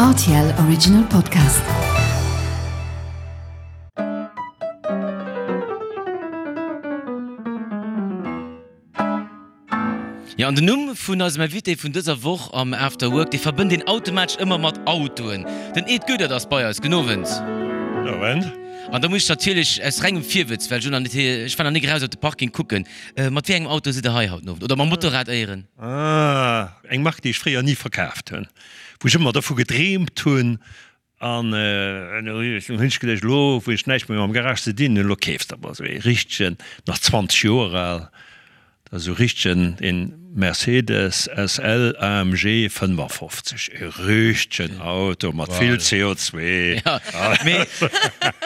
Rtl Original Podcast. Jo, an den Numm vun eisem Invité vun dëser Woch am After Work, dee verbënnt een automatesch ëmmer mat Autoen. Den Ed Goedert ass bei eis. Gudden Owend. Gudden Owend. An da muss ech natierlech aus rengem Virwëtz, well ech elo nach net, ech war nach nik eraus op de Parking kucken, mat wéi engem Auto sidd Der hei haut den Owend? Oder mam Motorrad éieren? Ah, eng Mark, déi ech fréier ni verkaaft hunn, wou ech ëmmer dervu gedreemt hunn, An elo hunn ech geduecht, elo wou ech näischt méi mam Garage ze dinn hunn, elo keefs de emol esou ee richtegen, nach 20 Joer al, dat ass esou richtegen, een Mercedes SL AMG 55, e richtegen Auto mat vill CO2. Jo, mee du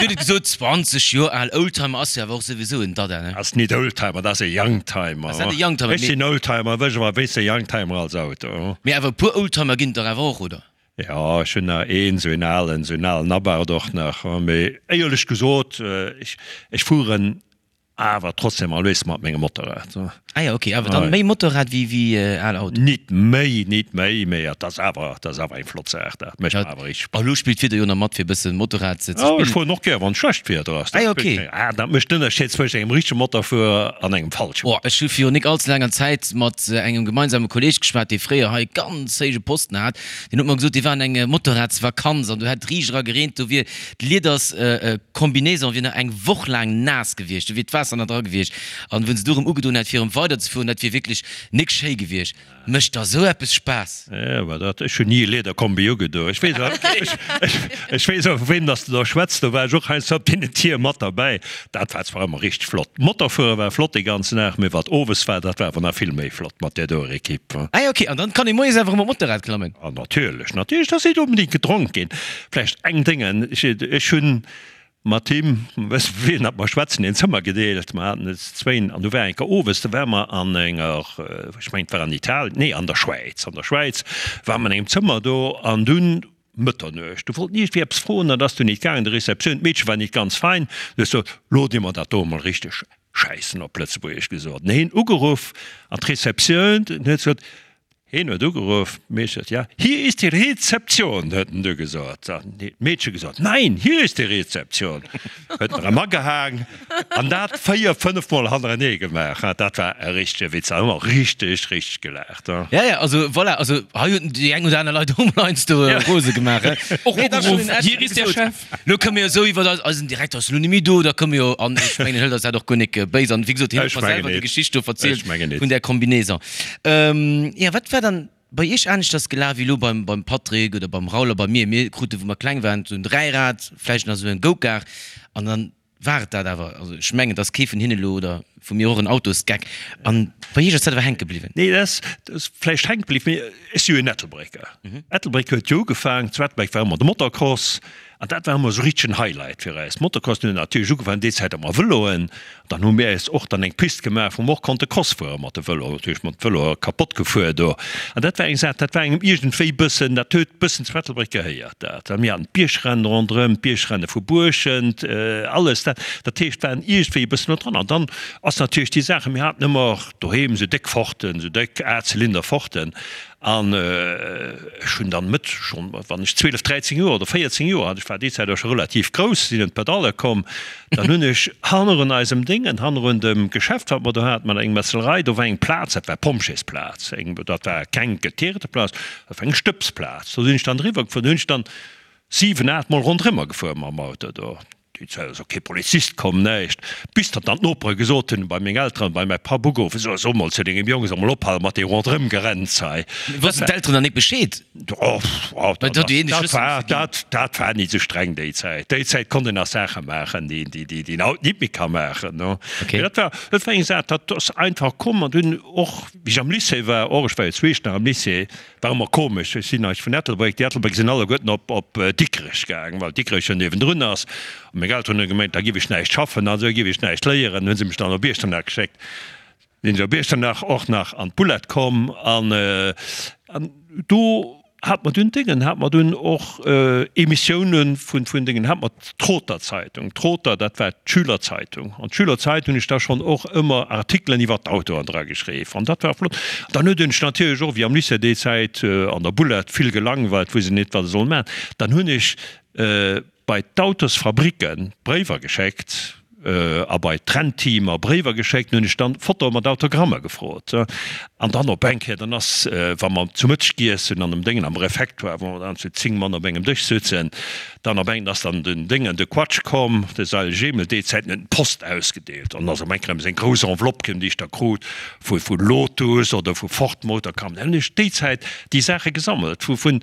huet et gesot, 20 Joer al, Oldtimer ass jo awer och souwisou en Dada, ne? Ass nit Oldtimer, dat ass e Youngtimer. Ass dat e Youngtimer? Ech sinn Oldtimer, wësch awer wéis e Youngtimer als Auto. Mee awer e puer Oldtimer ginn et dach awer och, oder? Jo, ech hunn nach een, esou een alen, esou een alen Abarth och nach. Mee éierlech gesot, ech, ech fueren awer trotzdem always mat mengem Motorrad. Ah jo, ok, awer dann méi Motorrad wéi, wéi al Auto? Nit méi, nit méi, mee et ass awer, et ass awer eng flott Saach, dat mécht mer awer richteg Spaass. A lo spillt d'Wieder jo nach mat fir e bësse Motorrad ze spillen. Ech fueren och gär wann schlecht Wieder ass. Ah jo, ok. Ah, dat mécht den Ënnerscheed zwëscht engem richtege Motorfuerer an engem falsche. Oh, ech hu virun nik allze laanger Zäit mat engem gemeinsame Kolleg geschwat, dee fréier hei ganz héije Posten hat. Deen huet mer gesot, dee war an eng Motorradsvakanz an do hätt riicht era gereent, do wier d'Lieders-Combinaison wier nach eng Woch laang naass gewiescht, do wier d'Waasser nach dra gewiescht an wou se du erëm ugedoen hätt fir erëm weiderzefueren, dat wier wierklech nik schéi gewiescht. Mécht der esou eppes Spaass? Jo, mä dat, ech hunn ni e Lederkombi ugedoen. Ech weess awer, ech weess awer vu weem dass de do schwätz, do war ech och heiansdo op deenen Tier mat derbäi. Dat war zwar ëmmer richteg flott. Motorfuere war flott dee ganzen Dag, mee wat owes war, dat war awer nach vill méi flott mat där doer Equipe. Ah jo, ok. An dann kann ee moies awer erëm op d'Motorrad klammen? Ah natierlech, natierlech, dat ass net onbedéngt gedronk ginn. Vläicht eng Déngen, ech, ech hunn mat him, wëss wien dat mer schwätzen, een Zëmmer gedeelt, mer haten et zwéin, an du war eng Kéier owes, do ware mer an enger, ech mengen et war an Italien, nee an der Schwäiz, an der Schwäiz ware mer an engem Zëmmer do an dunn, Mëtternuecht. Du wollt iergendwéi eppes froen, dat ass dunn nit gaangen. De Receptioun, d'Meedche war nit ganz fein. Du hues gesot, Lo di mer dat do emol richteg schäissen, op Lëtzebuergesch gesot. En heen ugeruff an d'Receptioun, den huet gesot, heen huet ugeruff, d'Meedche huet, ja, hier ist die Rezeption, huet en du gesot. Dann huet d'Meedche gesot, Nein, hier ist die Rezeption. Huet en erëm agehaang an dat 4, 5 mol hannerenee gemaach. Dat war e richtege Witz, da hu mer richteg, richteg gelaacht. Ja, ja, also voilà, also hei hunn déi eng oder aner Leit och mol heiansdo rose gemaach. Och ugeruff, Hier ist der Chef. Lo kënne mir jo esou iwwer eis, eisen Direkter ass elo net méi do, da kënne mir jo, an ech mengen, en hëlt eis dat och guer nik béis an wéi gesot, hien huet mer selwer déi Geschicht do verzielt vun där Combinaison. Jo, wat war dann Bei iech aneschters gelaf wéi elo beim beim Patrick oder beim Raoul a bei mir? Mir krute wou mer kleng waren esou en Dräirad, vläicht nach esou en Go-Kart an dann war et dat awer. Also ech mengen et ass kee vun hinne elo oder vu mir och en Autosgeck. An bei iech ass dat awer hänke bliwwen? Nee, dat ass dat ass vläicht hänke bliwwen, mee ech si jo en Ettelbrécker. Ettelbréck huet jo ugefaang, zu Ettelbréck war ëmmer de Motocross an dat war ëmmer esou richteg en Highlight fir eis. Motocross, mir hunn natierlech ugefaangen déi Zäit ëmmer Vëloen. Dann hu mir äis och dann eng Pist gemaach, wou mer och konnte Cross fuere mat de Vëloen. Natierlech mat de Vëloe kapott gefuer do. An dat war eng Saach, dat war engem iergendwéi bëssen, dat huet bëssen zu Ettelbréck gehéiert dat. A mir haten d'Biergrennen ronderëm, d'Biergrenne vu Buerschent, alles dat. Dat heescht, waren iergendwéi e bëssen no dran. An dann ass natierlech déi Saache, mir haten ëmmer doheem esou déck Forten, esou déck Achtzylinder-Forten. An ech hunn dann Mëtt, schonn wann ech 12, 13 Joer oder 14 Joer hat, ech war déi Zäit och scho relativ grouss, sinn un d'Pedalle komm, dann hunn ech hannerun eisem Déngen, hannerun dem Geschäft wat mer do haten mat engem Metzelerei, do war eng Plaz, dat war Pompjeesplaz, eng, dat war keng geteerte Plaz, dat war eng Stëbsplaz, do sinn ech dann eriwwer gefuer, do hunn ech dann 7, 8 mol ronderëmmer gefuer mam Auto do. Déi Zäit ass och kee Polizist komm, näischt. Bis datt dann d'Nopere gesot hunn, bei meng Elteren, bei mäi Papp ugeruff, So, so mol zu dengem Jong, soll mol ophale mat deem Ronderëmgerenns hei. Wossten d'Elteren dann nik Bescheed? Oh, dat war, dat, dat war nit esou streng déi Zäit. Déi Zäit konnt een nach Saache maachen, déi, déi, déi een haut nit méi ka maachen, no. Mee dat war, dat war eng Saach, dat ass einfach komm. An dunn och, wéi ech am Lycée war, och, ech war jo zweescht nach am Lycée, War ëmmer komesch, ech sinn eis vun Ettelbréck, déi Ettelbréck sinn alleguerten op op Dikrech gaang, well Dikrech jo niewendrun ass. A meng Elteren hunn gemengt, da giff ech näischt schaffen an esou giff ech näischt léieren, hunn se mech dann op Iechternach geschéckt. Sinn ech op Iechternach och nach an d'Boulette komm an an do. hat mer dunn Déngen, hat mer dunn och Emissiounen vun, vun Déngen, hat mer d'Trother Zeitung. D'Trother, dat war d'Schülerzeitung. An d'Schülerzeitung hunn ech da schonn och ëmmer Artikelen iwwer d'Autoen dra geschriww. An dat war flott. Dann huet ech natierlech och, wéi am Lycée déi Zäit, an der Bullett vill gelangweilt, wou se net wat se sollen maachen, dann hunn ech bei d'Autosfabricken Bréiwer geschéckt a bei d'Rennteamer Bréiwer geschéckt, hunn ech dann Fotoe mat Autogrammer gefrot. An dann op eng Kéier, dann ass, wa mer zu Mëtteg giess hunn an dem Déngen am Refectoire, wou mer dann zu 10 Mann op engem Dësch sutzen, dann op eng ass dann den Déngen, de Quatsch komm, de Seil Jemel, déi Zäiten huet en d'Post ausgedeelt an ass op eng Kéier erëm seng grouss Enveloppe komm, déi ech da krut vu vu Lotus oder vu Ford Motor Company. Dann hunn ech déi Zäit déi Saache gesammelt vu vun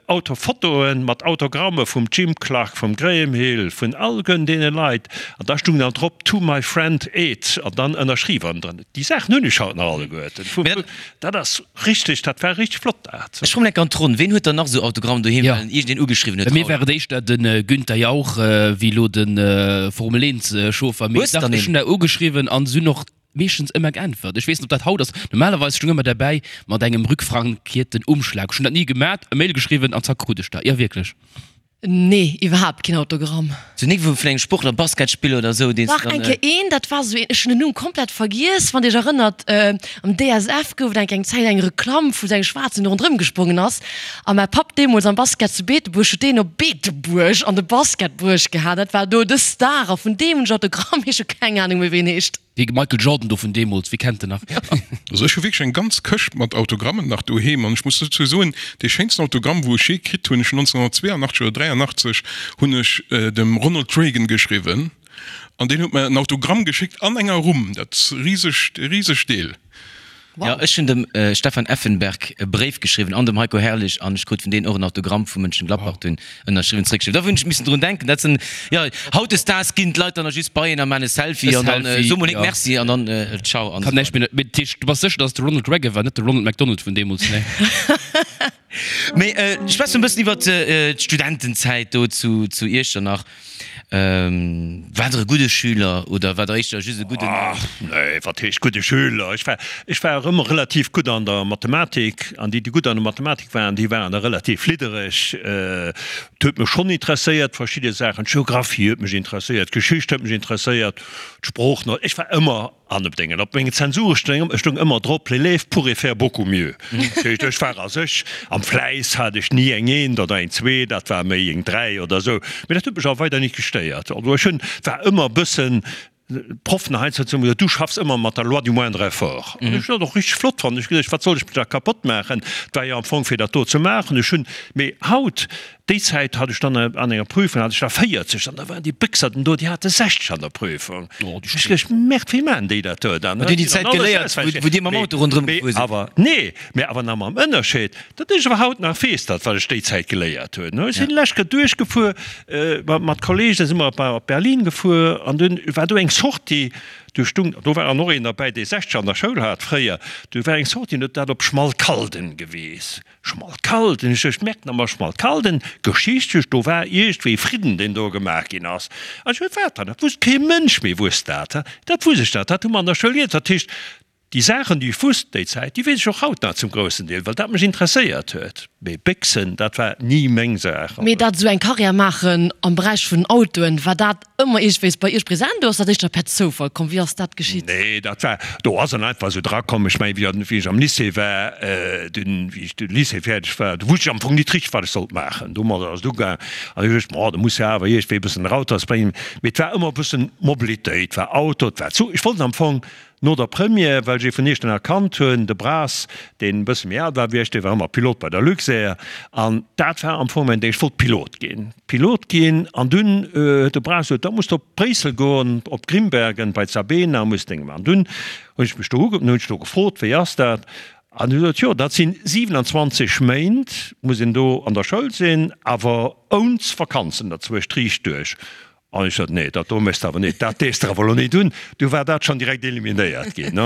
Autofotoen mat Autogramme vum Jim Clark, vum Graham Hill, vun alleguerten deene Leit. An da stung dann drop, To my friend Ed, an dann ënnerschriwwen drënner. Déi Saachen hunn ech haut nach alleguerten. Dat ass richteg, dat war richteg flott dat. Ech kommen enk an d'Ronn. Ween huet dann nach esou Autogrammen doheem, well en iergendeen ugeschriwwen huet? Bei mir war et éischter de Günther Jauch wéi elo de Formel 1 Chauffer. Mee dach, ech hunn der ugeschriwwen an se hunn och meeschtens ëmmer geäntwert. Ech weess net, ob dat haut ass. Normalerweis stung ëmmer derbäi mat engem rückfrankierten Umschlag. Ech hunn dat ni gemat, e Mail geschriwwen an zack krut ech der. Jo wierklech. Nee, iwwerhaapt keen Autogramm. Sou nik vun engem Sportler, Basketspiller oder sou, deen s Dach de dann. Eng Kéier een, dat war sou een, ech hunn den Numm komplett vergiess, wann Dir Iech erënnert, am DSF gouf et eng eng Zäit eng Reklamm vu sou engem Schwaarzen, dee ronderëm gesprongen ass. A mäi Papp deemools am Basket zu Beetebuerg huet deen op Beetebuerg an de Basket bruecht gehat. Dat war do de Star a vun deem hunn ech Autogramm, mee ech hu keng Anung méi wéi en heescht. Dee Michael Jordan do vun deemools, wie kennt en nach? Also ech hu wierklech eng ganz Këscht mat Autogrammen nach doheem an ech muss dozou soen, dee schéinsten Autogramm wou ech jee kritt hunn, ech hunn 1982 oder 83 hunn ech dem Ronald Reagan geschriwwen an deen huet mer en Autogramm geschéckt an enger Rumm, dat risegt, risegt Deel. Jo, ech hunn dem Stefan Effenberg e Bréif geschriwwen an dem Heiko Herrlich an ech krut vun deenen och en Autogramm vu Mönchengladbach dunn ënnerschriwwen zréckgeschriwwen. Da hunn ech missen drun denken. Dat sinn, jo, hautdesdaags ginn d'Leit dann nach just bei een a maachen e Selfie an dann so mol nik Merci an dann ciao an esou weider. Mee dat heescht, du bass sécher, datt et de Ronald Reagan war, net de Ronald McDonald vun deemools, nee? Mee schwätze mer e bëssen iwwert d'Studentenzäit do zu Iechternach. War der e gudde Schüler oder war der éischter just e gudden. Ach nee, wat heescht gudde Schüler? Ech war, ech war och ëmmer relativ gutt an der Mathematik an déi, déi gutt an der Mathematik waren, déi waren da relativ liddereg. Et huet mech schonn interesséiert, verschidde Saachen, d'Geographie huet mech interesséiert, d'Geschicht huet mech interesséiert, d'Sproochen, ech war ëmmer An op dengen, op mengen Zensuren stoung, stoung ëmmer drop, L'élève pourrait faire beaucoup mieux. Dat heescht, ech war a sech, am Fläiss hat ech ni eng Eent oder eng Zwee, dat war méi eng Dräi oder esou. Mee dat huet mech awer weider nit gestéiert. Also ech hunn, war ëmmer e bëssen, d'Proffen heiansdo hu gesot, du schaffs ëmmer mat der loi du moindre effort. An ech hunn dat och richteg flott fonnt. Ech hu geduecht, wat soll ech mech da kapott maachen? Et war jo am Fong fir dat do ze maachen. Ech hunn, mee haut, Déi Zäit hat ech dann an enger Prüfung hat ech da 40 an da waren déi Béchserten do, déi hate 60 an der Prüfung. Ech geduecht, Merde, wéi maachen déi dat do dann? Hutt Dir déi Zäit geléiert, wou Dir mam Auto ronderëm gefuer sidd? Awer nee, mä awer nach mam Ënnerscheed, datt ech awer haut nach weess, dat wat ech déi Zäit geléiert hunn. Ech sinn lech Kéier duerchgefuer mat Kolleegen, da si mer op Berlin gefuer an dunn war do eng Sortie, do stung, do war och een derbäi, dee 60 an der Schoul hat fréier, do war eng Sortie, an huet dat op Schmalkalden geweess. Schmalkalden, ech ech merken emmer Schmalkalden, geschichtlech, do war iergendwéi Fridden, deen do gemaach ginn ass. An ech huet wat dann? Dat wusst kee Mënsch méi, wusst dat. Dat wusst ech dat, dat hu mer an der Schoul geléiert. Dat heescht, déi Saachen, déi ech wusst déi Zäit, déi weess ech och haut nach zum groussen Deel, well dat mech interesséiert huet. Mee Béchsen, dat war ni meng Saach. Mee dat esou eng Karriär maachen am Beräich vun Autoen, war dat Ëmmer iergendwéis bei Iech present oder ass dat éischter per Zoufall komm? Wéi ass dat geschitt? Nee, dat war, do ass en einfach esou drakomm. Ech mengen, wéi ech am Lycée war, dunn, wéi ech de Lycée fäerdeg war, do wusst ech am Fong nit richteg, wat ech sollt maachen. Domadder ass et ugaang an ech duecht, ma da muss jo awer iergendwéi e bëssen erausbréngen. Mee et war ëmmer e bëssen Mobilitéit, et war Auto, et war Zuch. Ech wollt am Fong No der Première, well ech ee vun Iechternach kannt hunn, de Braas, deen e bësse méi al war wéi ech, dee war ëmmer Pilot bei der Luxair an dat war am Fong mäin Ding, ech wollt Pilot ginn, Pilot ginn. An dunn huet de Braas gesot, da muss de op Bréissel goen, op Grimbergen bei d'Sabena, muss Dénge maachen. Dunn hunn ech mech do uge, hunn ech do gefrot, wéi ass dat? An hu gesot, jo, dat sinn 27 Méint muss een do an der Schoul sinn, awer ouns Vakanzen derzwëscht, riicht duerch. An ech sot, Nee, dat do méchs de awer net, dat dees de awer elo net un. Du war dat schonn direkt eliminéiert ginn.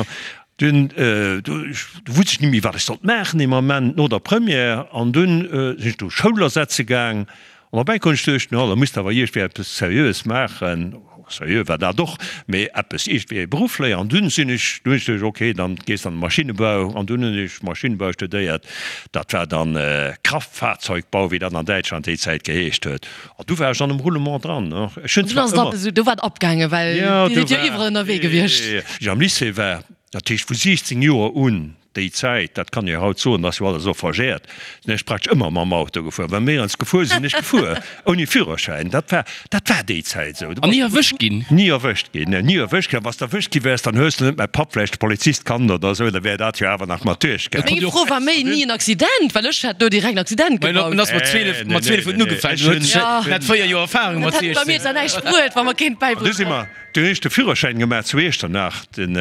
Dunn, du wusst ech net méi, wat ech sollt maachen dee Moment no der Première. An dunn sinn ech do Schoul ersetze gaang. An op eng Kéier hunn ech geduecht, no, da muss de awer iergendwéi eppes Seriöes maachen. Seriö war dat och, mee eppes iergendwéi e Beruff léieren. An dunn sinn ech, dunn hunn ech geduecht, okay, dann gees de an de Maschinnebau. An dunn hunn ech Maschinnebau studéiert. Dat war dann Kraftfahrzeugbau, wéi dat an Däitschland déi Zäit geheescht huet. An du war ech an dem Roulement dran. Ech hunn Dunn zwar ass et ëmmer. ab esou, do war et abgaangen, well Jo, Dir do sidd jo war, iwwerall ënnerwee gewiescht. wéi ech am Lycée war, dat heescht vu 16 Joer un, Déi Zäit, dat kann ee jo haut soen, dat ass jo alles elo verjährt, sinn ech praktesch ëmmer mam Auto gefuer. Wa mir eens gefuer sinn, sinn ech gefuer, ouni Führerschäin. Dat war, dat war déi Zäit esou. An ni erwëscht ginn? Ni erwëscht ginn, nee, ni erwëscht ginn. A wa s de erwëscht gi wäers, dann hues de net mäi Papp vläicht de Polizist kannt oder esou, da wär dat jo awer nach mat duerchgaangen. Meng Fro war méi, ni en Accident, well ech hätt do direkt en Accident gebaut. En ass mat 12, mat 12 huet en ugefaangen, du huet en hat 4 Joer Erfahrung mat Dat hätt bei mir 16. zwar näischt bruet, wa mer kéint An du si bäibruecht. mer, Du hunn ech de Führerschäin gemaach zu Iechternach, den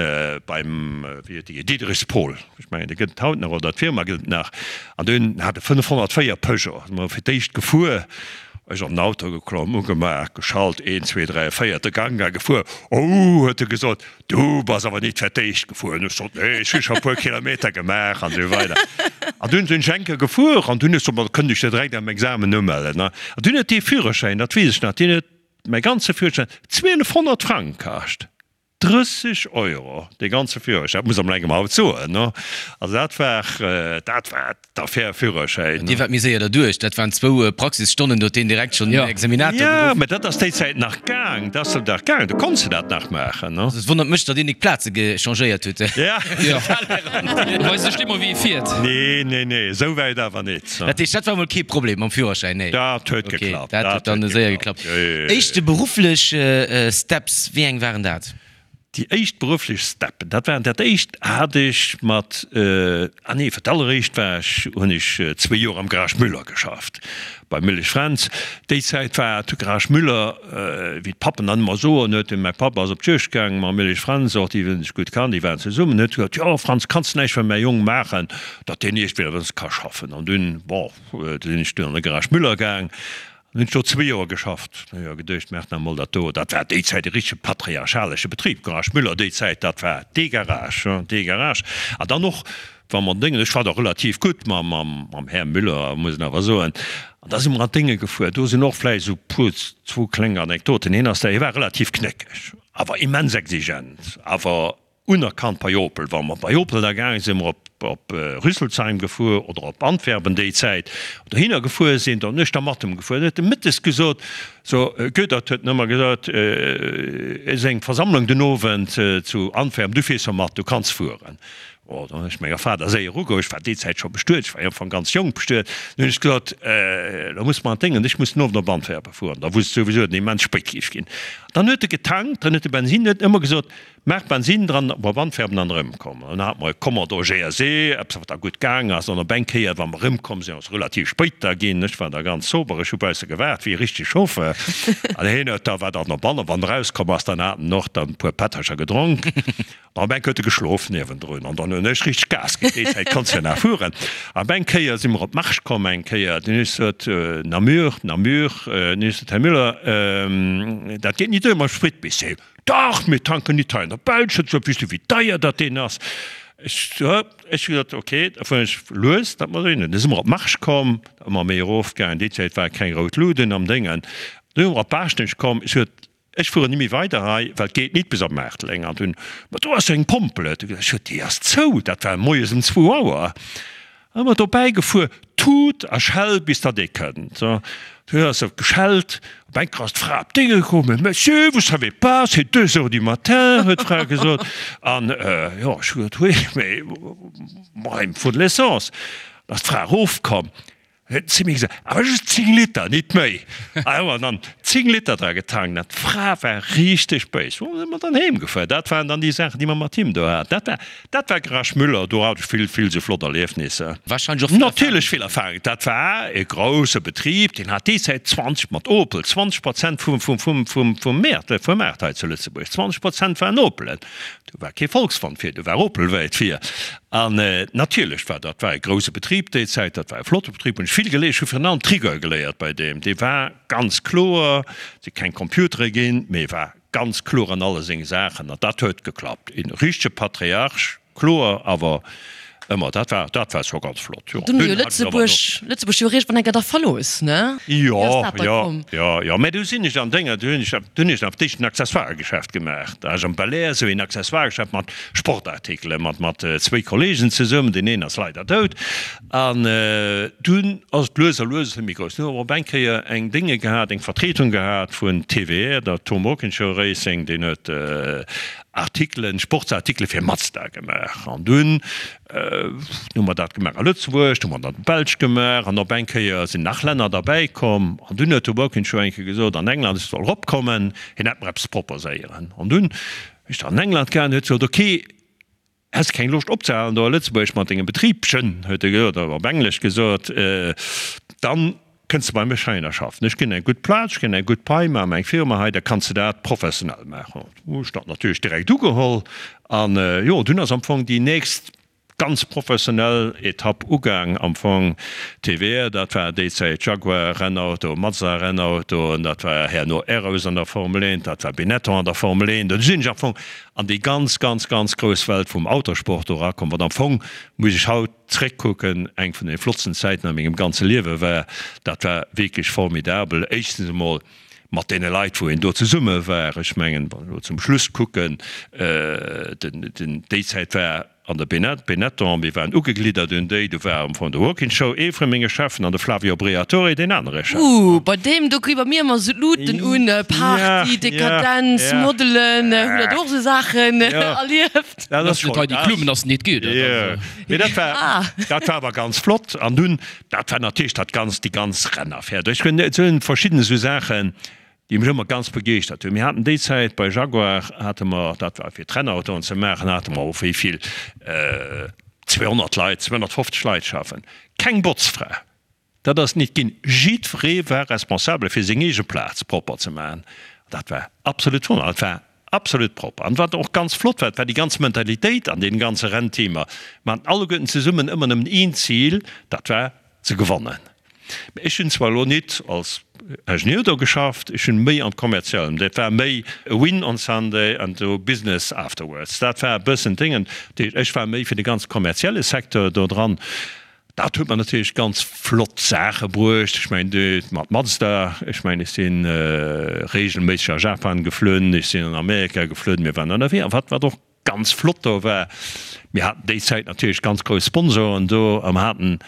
beim, wéi huet dee geheescht, Diederichs Paul, ech mengen dee gëtt et haut nach, oder d'Firma gëtt et nach, an dunn hat e 504 Peugeot, si mer fir d'éischt gefuer, ech an den Auto geklomm, ugemaach, geschalt, een, zwee, dräi, véierte Gank a gefuer. Oh, huet e gesot, du bass awer nit fir d'éischt gefuer. An ech sot, nee, ech hu scho e puer Kilometer gemaach an esou weider. An dunn sinn ech eng Kéier gefuer an dunn ech sot, ma da kënnt ech jo direkt am Examen umellen. An dunn huet dee Führerschäin, dat weess ech nach, deen huet Mäi ganze Führerschäin, 1200 Frang kascht, 30 Euro dee ganze Führerschäin, dat muss am engem haut soen, ne? Also dat war, dat war d'Affär Führerschäin. Dir waart méi séier derduerch, dat waren zwou Praxisstonnen, do huet deen direkt schonn den Examinator geruff. Jo, mä dat ass déi Zäit nach gaang, dat ass nach gaang, do konns de dat nach maachen, ne? Also et wonnert mech, datt een nik d'Plaze gechangéiert huet. Ja. Weist sech net mol wéi e fiert. Nee, nee, nee, esou wäit awer nit. Dat heescht, dat war mol kee Problem mam Führerschäin? Nee. Dat huet geklappt. Dat huet dann séier geklappt. Éischte berufflech Steps, wéi eng waren dat? Déi éischt berufflech Steppen, dat waren, dat éischt hat ech mat, ah nee, fir d'alleréischt war ech, hunn ech zwee Joer am Garage Müller geschafft, bei Müllesch Fränz. Déi Zäit war de Garage Müller, wéi d'Pappen dann ëmmer soen, huet de, mäi Papp ass op d'Juegd gaang mam Müllesch Fränz, och déi hunn sech gutt kannt, déi waren zesummen, huet gesot, jo Franz, kanns de näischt fir mäi Jong maachen? datt deen iergendwéi eppes ka schaffen. An dunn, bon, du sinn ech dunn an de Garage Müller gaang an hunn ech do zwee Joer geschafft. Hu jo geduecht, maach nach emol dat do. Dat war déi Zäit e richtege patriarchalesche Betrib, Garage Müller déi Zäit, dat war dee Garage, dee Garage. An dann och, wa mer Déngen, ech war da relativ gutt mam, mam Här Müller, muss een awer soen. An da si mer an d'Dénge gefuer. Do sinn och vläicht esou puer, zwou kleng Anekdoten. Hien ass da, hie war relativ knéckeg, awer immens exigent, awer Unerkannt bei Opel. Wa mer bei Opel da gaange sinn, mer op op Rüsselsheim gefuer oder op Antwerpen déi Zäit, dohinner gefuer sinn, dann hunn ech da mat em gefuer. Dann huet e mëttes gesot, so Goedert huet en ëmmer gesot, et ass eng Versammlung den Owend zu Antwerpen, du fiers jo mat, du kanns fueren. Oh, dann hunn ech menger Fra da séier ugeholl, ech war déi Zäit scho bestuet, ech war jo am Fong ganz jonk bestuet, dann hunn ech gesot, elo muss mer an d'Déngen, ech muss den Owend op Antwerpen fueren. Da wusst souwisou, datt et immens spéit géif ginn. Dann huet e getankt, dann huet e Bensin, huet ëmmer gesot, Maach Bensin dran, op Antwerpen an erëmkomm. An dann hate mer e Commodore GSE, eppes wat da gutt gaang ass. An op eng Kéier, wa mer erëmkomm sinn, ass relativ spéit da ginn. Ech war da ganz sober, ech hu bausse gewaart wéi e richtege Chauffeur. An hien huet da, war dann op an, wann en erauskomm ass, dann hat en och dann e puer Pättercher gedronk. An op eng Kéier huet e geschlof niewendrun. An dann hunn ech richteg Gas ginn. Déi Zäit konns de jo nach fueren. An op eng Kéier si mer op d'Marche komm eng Kéier. Dunn hunn ech gesot, Namur, Namur. Dunn hunn ech gesot, Här Müller, dat geet ni duer mam Sprit bis heem. Dach, mir tanken nit hei an der Belsch, huet gesot, weess du wéi deier dat deen ass? Ech ech hu gesot, ok, da fueren ech lues, dat mer dohinner. Du si mer op Marche komm, ëmmer méi erof gaangen, déi Zäit ware keng rout Luden am Déngen. Du si mer op Baaschtnech komm, ech hu gesot, ech fueren ni méi weider hei, well et geet nit bis op Maarteleng. An dunn, ma do ass jo eng Pompel, huet e gesot. Ech hu gesot, déi ass zou, dat war moies ëm zwou Auer. Ëmmer dobäi gefuer, tut a schell bis datt ee kënnt. Du hues se geschellt, op eng Kéier ass d'Fra op d'Dénge komm, Mais monsieur, vous savez pas, c'est deux heures du matin, huet d'Fra gesot. An jo, ech hu gesot, oui, mais moi, il me faut de l'essence. Da ass d'Fra erofkomm, huet zu mir gesot, awer just 10 Liter, nit méi. A jo, an dann 10 Liter dra getankt. An d'Fra war richteg béis. Bon, si mer dann heem gefuer. Dat waren dann déi Saachen, déi mer mat him do haten. Dat war Dat war Garage Müller, do hat ech vill, vill sou flott Erliefnisser. Wahrscheinlech och vill Natierlech vill Erfahrung. Dat war e grousse Betrib, deen hat déi Zäit 20, mat Opel, 20 Prozent vum, vum, vum, vum, vum Mäert, vum Maart hei zu Lëtzebuerg. 20 Prozent waren Opelen. Do war kee Volkswon vir, do war Opel wäit vir. An natierlech war dat war e grouse Betrib déi Zäit, dat war e flotte Betrib, hunn ech vill geléiert. Ech hu virun allem d'Rigueur geléiert bei deem. Dee war ganz kloer, et si keng Computere ginn, mee e war Ganz kloer an alle seng Saachen, an dat huet geklappt. Een richtege Patriarch, kloer, awer. Ëmmer, dat war, dat war scho ganz flott, jo. Dunn hu jo Lëtzebuerg, Lëtzebuerg jo eréischt wann enker da verlooss, ne? Wéi ass dat da komm? Jo, jo, jo, mä du sinn ech an Dénger, du hunn ech, du hunn ech nach d'éischt en Accessoiregeschäft gemaach. Da hu ech am Belair esou een Accessoiregeschäft mat Sportartikelen, mat, mat zwéi Kollegen zesummen, deen een ass leider dout. An dunn ass et lues a lues e bësse méi grouss. Dunn hu mer op eng Kéier eng Dénge gehat, eng Vertretung gehat vun TWR, der Tom Walkinshaw Racing, deen huet Artikelen, Sportsartikele fir Mazda gemaach. An dunn hu mer dat gemaach a Lëtzebuerg, du hu mer dat an der Belsch gemaach an op eng Kéier sinn nach Länner derbäi komm. An dunn huet de Walkinshaw eng Kéier gesot an England, ech soll eropkommen, hien hätt mer eppes proposéieren. An dunn hu ech dann an England gaangen, huet gesot, ok, häss keng Loscht opzehalen do a Lëtzebuerg mat dengem Betribchen, huet e gesot, op Englesch gesot, dann Kënns de bei mech heihinner schaffen? Ech ginn eng gutt Plaz, ech ginn eng gutt Pai, maache mer eng Firma hei, da kanns de dat professionell maachen. Hu ech dat natierlech direkt ugeholl an jo, dunn ass am Fong déi nächst ganz professionell Etapp ugaang am Fong. TVR, dat war déi Zäit Jaguar Rennauto, Mazda Rennauto, dat war herno Arrows an der Formel 1, dat war Benetton an der Formel 1. Do sinn ech am Fong an déi ganz, ganz, ganz grouss Welt vum Autosport do erakomm, wat am Fong, muss ech haut, Zréckkucken, eng vun den flottsten Zäiten a mengem ganze Liewe war. Dat war wierklech formidabel. Éischtens emol mat deene Leit, wou een do zesumme war. Ech mengen, wann ech elo zum Schluss kucken, den, déi Zäit war an der Benetton, mir waren ugegliddert un déi, do war am Fong de Walkinshaw ee vu menge Cheffen an de Flavio Briatore deen anere Chef. Ooh, bei deem do kri bei mir ëmmer esou d'Luuten un, Party, Dekadenz, Modelen, hutt der do och esou Saachen erlieft? Dat ass net hei déi Klummen ass net geet. Mee dat war dat war awer ganz flott an dunn dat war natierlech dat ganz déi ganz Rennaffär. Ech hunn et hunn verschidden esou Saachen, déi mech ëmmer ganz begeeschtert hunn. Mir haten déi Zäit bei Jaguar hate mer, dat war fir d'Rennautoen ze maachen, hate mer och wéi vill 200 Leit, 250 Leit schaffen. Keng Botzfra. Dat ass nit ginn. Jiddweree war responsabel fir seng eege Plaz propper ze maachen. Dat war absolut wonner. Et war absolut propper. An wat och ganz flott war, dat war déi ganz Mentalitéit an deenen ganze Rennteamer. Mer haten alleguerten zesummen ëmmer nëmmen een Zil, dat war ze gewannen. Mä ech hunn zwar elo nit als Ingenieur do geschafft, ech hunn méi am Kommerziellen, dat war méi a win on Sunday and do business afterwards. Dat war e bëssen d'Déngen. Dat heescht, ech war méi fir de ganz kommerzielle Secteur do dran. Dat huet mer natierlech ganz flott Saache bruecht. Ech mengen, de mat Mazda, ech mengen, ech si reegelméisseg a Japan geflunn, ech sinn an Amerika geflunn, mir waren ënnerwee. A wat, wat och ganz flott do war, mir haten déi Zäit natierlech ganz grouss Sponsoren do a mer haten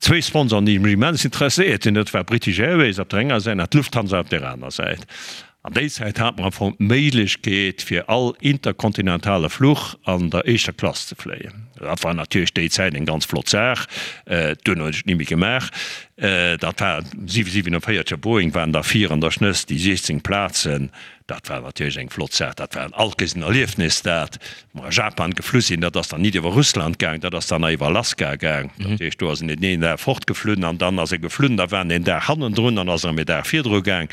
zwéi Sponsoren, déi mech immens interesséiert hunn, dat war British Airways op der enger Säit an d'Lufthansa op där aner Säit. An déi Zäit hat mer am Fong d'Méiglechkeet fir all interkontinentale Fluch an der éischter Klass ze fléien. Dat war natierlech déi Zäit eng ganz flott Saach. Duerno hunn ech et ni méi gemaach. Dat war 747er Boeing waren da vir an der Schnëss déi 16 Plazen. Dat war natierlech eng flott Saach. Dat war alt kees en Erliefnis dat. Mer a Japan geflu sinn, dat ass dann nit iwwer Russland gaang, dat ass dann nach iwwer Alaska gaang. Dat heescht, do ass en een Dag fortgeflunn an dann ass e geflunn, da war en een Dag hannendrun, dann ass en erëm ee Dag virdru gaang.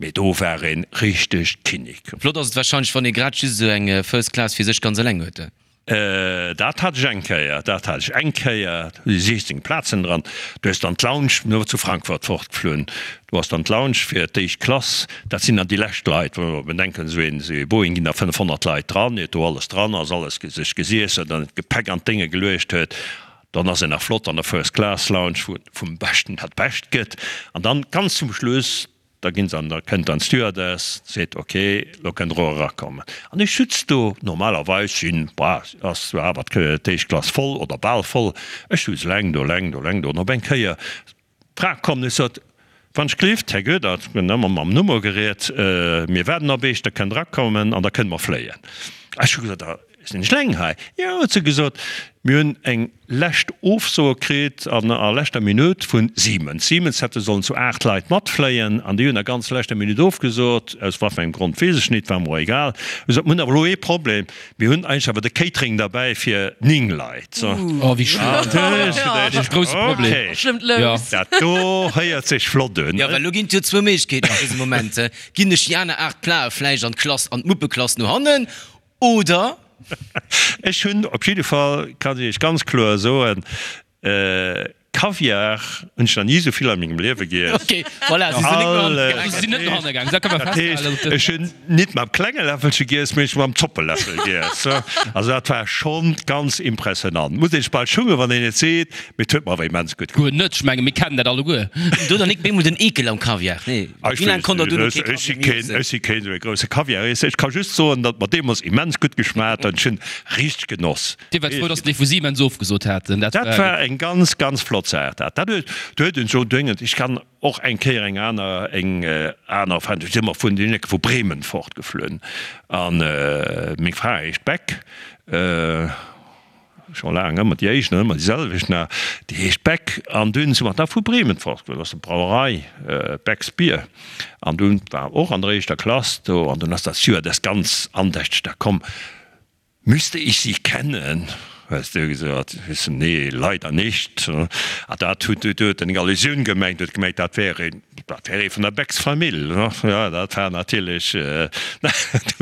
Mee do war e richteg Kinnek. Flott ass et warscheinlech, wann ee grad just esou eng First Class fir sech ganz eleng huet. Dat hat ech eng Kéier, dat hat ech eng Kéier, do si 16 Plazen dran. Du hues dann d'Lounge, mir zu Frankfurt fortgeflunn, do ass dann d'Lounge fir d'éischt Klass, dat sinn dann déi lescht Leit, wa mer bedenken, esou een, esou ee Boeing ginn da 500 Leit dran, iert do alles dran ass, alles sech gesiess huet an d'Gepäck an d'Dénge geluecht huet, dann ass een nach flott an der First Class Lounge, wou et vum Beschten dat Bescht gëtt. An dann ganz zum Schluss, Da ginn se an, da kënnt dann d'Stewardess, seet, ok, lo kënnt der och erakommen. An ech sutz do, normalerweis sinn, bah, ass zwar awer d'éischt Klass voll oder bal voll, ech sutz eleng do, eleng do, eleng do, an op eng Kéier d'Fra komm, ech sot, Wann ech gleeft, Här Goedert, mir hunn ëmmer mam Nummer geriet, mir waarden op Iech, da kënnt der erakommen an da kënne mer fléien. Ech hu gesot, Da sinn ech eleng hei. Jo, huet se gesot, mir hunn eng lescht Ofsoe kritt an a leschter Minutt vu Siemens. Siemens hätte sollen zu 8 Leit matfléien an déi hunn a ganz leschter Minutt ofgesot, aus wat fir engem Grond weess ech nit, war mer och egal. Hu gesot, mir hunn awer elo ee Problem, mir hunn eigentlech awer de Catering derbäi fir 9 Leit. Oh wéi schlëmm. Dat ass e grousse Problem. Okay, dat do héiert sech flott un. Jo, well elo ginn et jo zwou Méiglechkeeten an dësem Moment, Ginn ech déi aner 8 Plae vläicht an d'Klass, an d'Muppeklass no hannen oder? Ech hunn op jidde Fall, kann ech Iech ganz kloer soen, Kaviar hunn ech nach ni esou vill a mengem Liewe giess. Ok, voilà, si sinn net no hanne gaang. Si sinn net no hanne gaang, dat ka mer Dat heescht, festhalen. ech hunn nit mam klenge Läffelche giess, mee ech hu mam Zoppeläffel giess. Also dat war schonn ganz impressionant. Muss een sech bal schummen, wann een et seet, mee et huet mer awer immens gutt Guer net, ech menge mir kennen dat alleguer. Do dann nik bemol den Eekel am Kaviar, nee? Ech Wéi laang weess konnt der net, duerno ech kee si Kaviar méi keen, iessen? ech si keen esou ee grousse Kaviareesser. Ech ka just soen, datt mer deemools immens gutt geschmaacht huet. Ech hunn richteg genoss. Dir waart frou, dass déi vu Siemens ofgesot haten. Dat war eng ganz, ganz flott Saach. Dat, dat huet, do huet en scho dréngend, ech kann och eng Kéier eng aner, eng aner Erfahrung, do si mer vun den Ecke vu Bremen fortgeflunn an meng Fra heescht Beck, scho laang ëmmer déi éischt an ëmmer déi selwecht nach, déi heescht Beck an dunn si mer da vu Bremen fortgeflunn, dat ass eng Brauerei, Becks Bier an dunn war och an der éischter Klass do an dunn ass dat Stewardess ganz andächteg da komm, Müsste ich sie kennen? hues du gesot. Ech sou, Nee, leider nicht. A dat huet, do huet en eng Allusioun gemengt, huet gemengt, dat wär een, dat wär ee vun der Becks Famill. Jo, dat war natierlech, do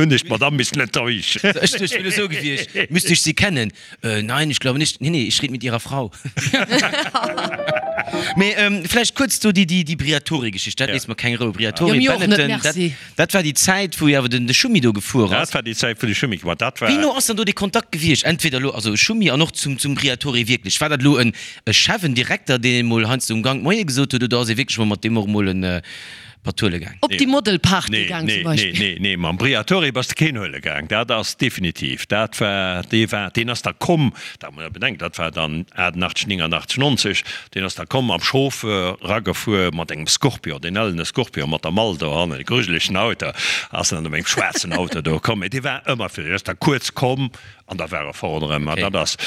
hunn ech d'Madame missen enttäuschen. Ech duecht, wier esou gewiescht, Müsste ich sie kennen? Nein, ich glaube nicht. Nee, nee, ich red mit ihrer Frau. Mee vläicht kuerz do déi, déi Briatore-Geschicht, dat léisst mer keng Rou. Briatore, Jo, mir och net, Benetton, dat. merci. Dat war déi Zäit, wou jo awer den de Schumi do gefuer ass. Dat war déi Zäit, wou de Schumi gefuer ass. Dat war. Wéi no ass dann do dee Kontakt gewiescht? Entweder elo, also Schumi an och zum, zum Briatore wierklech. War dat elo en e Chef, en Direkter, deen emol heiansdo um Gank Moie gesot huet, oder ass ee wierklech mol mat deem och emol en Patt huele gaang? Op déi Modelparty Nee, gaang nee, zum Beispill. nee, nee, nee, mam Briatore bass de keen huele gaang. Dat ass definitiv. Dat war, dee war, deen ass da komm, dat muss ee bedenken, dat war dann 88, 89, 90, Deen ass da komm, am Chauffeur ragefuer mat engem Scorpion, deen ellene Scorpion mat der Mall dohannen, e grujelegen Auto, ass en dann op engem schwaarzen Auto do komm. Mee dee war ëmmer fir, deen ass da kuerz komm an da war e fort erëm. An dat ass,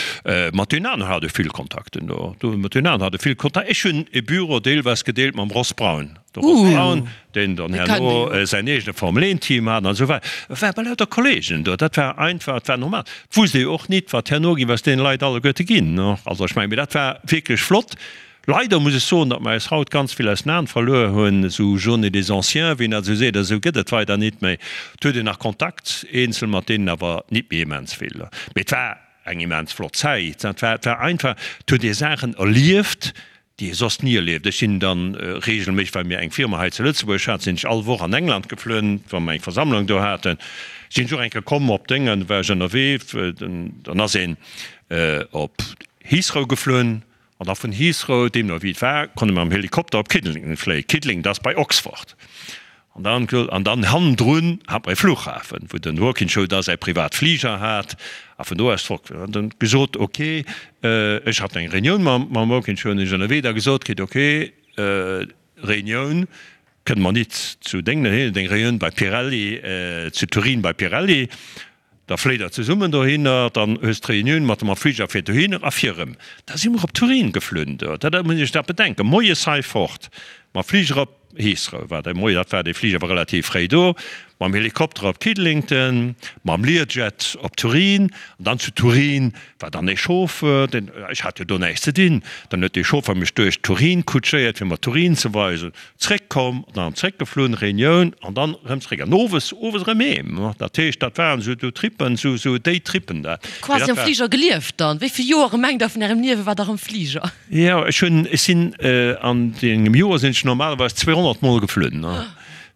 mat deenen aneren hat e vill Kontakten do, do mat deenen aneren hat e vill Kontakt. Ech hunn e Büro deelweis gedeelt mam Ross Brawn. De Ross Brawn, deen dann herno säin eegene Formel 1 Team hat an esou weider, war bei lauter Kollegen do. Dat war einfach, dat war normal. Et wusst ee jo och nit, wat herno géif aus deene Leit alleguerte ginn. Also ech mengen, mee dat war wierklech flott. Leider muss ech soen, datt mer eis haut ganz vill aus den Aen verluer hunn, esou Journée des Anciens, wéi een dat esou seet, esou gëtt et weider nit méi. Et huet een nach Kontakt, eenzel mat deenen, awer nit méi immens vill. Mee et war eng immens flott Zäit. Et war, et war einfach, et huet ee Saachen erlieft, déi ee soss ni erlieft. Ech sinn dann regelméisseg, well mir eng Firma hei zu Lëtzebuerg haten, sinn ech all Woch an England geflunn, wa mer eng Versammlung do haten. Sinn ech och eng Kéier komm op Déngen, war ech ënnerwee, dann ass een op Heathrow geflunn an da vun Heathrow, deemno wéi et war, konnte mer mam Helikopter op Kidlington fléien. Kidlington, dat ass bei Oxford. An dann, an dann hannendrun hat mer e Flughafen, wou den Walkinshaw da säi privat Fliger hat a vun do aus fort. An dann gesot, ok, ech hat eng Reunioun mam, mam Walkinshaw, hunn ech ënnerwee da gesot kritt, ok, Reunioun kënne mer nit zu Déngen, hien huet eng Reunioun bei Pirelli, zu Turin bei Pirelli. Da fléit der zesummen dohinner, dann hues d'Reunioun mat dem Fliger fir dohinner a fir erëm. Da si mer op Turin geflunn do, dat muss ee sech dat bedenken, moies hei fort mam Fliger op Heathrow, war de Moie, dat war dee Fliger war relativ fréi do, mam Helikopter op Kidlington, mam Learjet op Turin an dann zu Turin war dann ee Chauffeur, deen, ech hat jo do näischt ze dinn, dann huet dee Chauffeur mech duerch Turin kutschéiert fir mer Turin ze weisen. Zréck komm an dann zréck geflunn, Reunioun an dann erëm zréck an owes, owes erëm heem. Dat heescht, dat waren esou do Trippen, esou, esou déi Trippen da. Mee Quasi dat am war. Fliger gelieft dann. Wéi vill Joere mengt der vun ärem Liewe war der am Fliger? Jo, ech hunn, ech sinn an engem Joer sinn ech normalerweis 200 mol geflunn.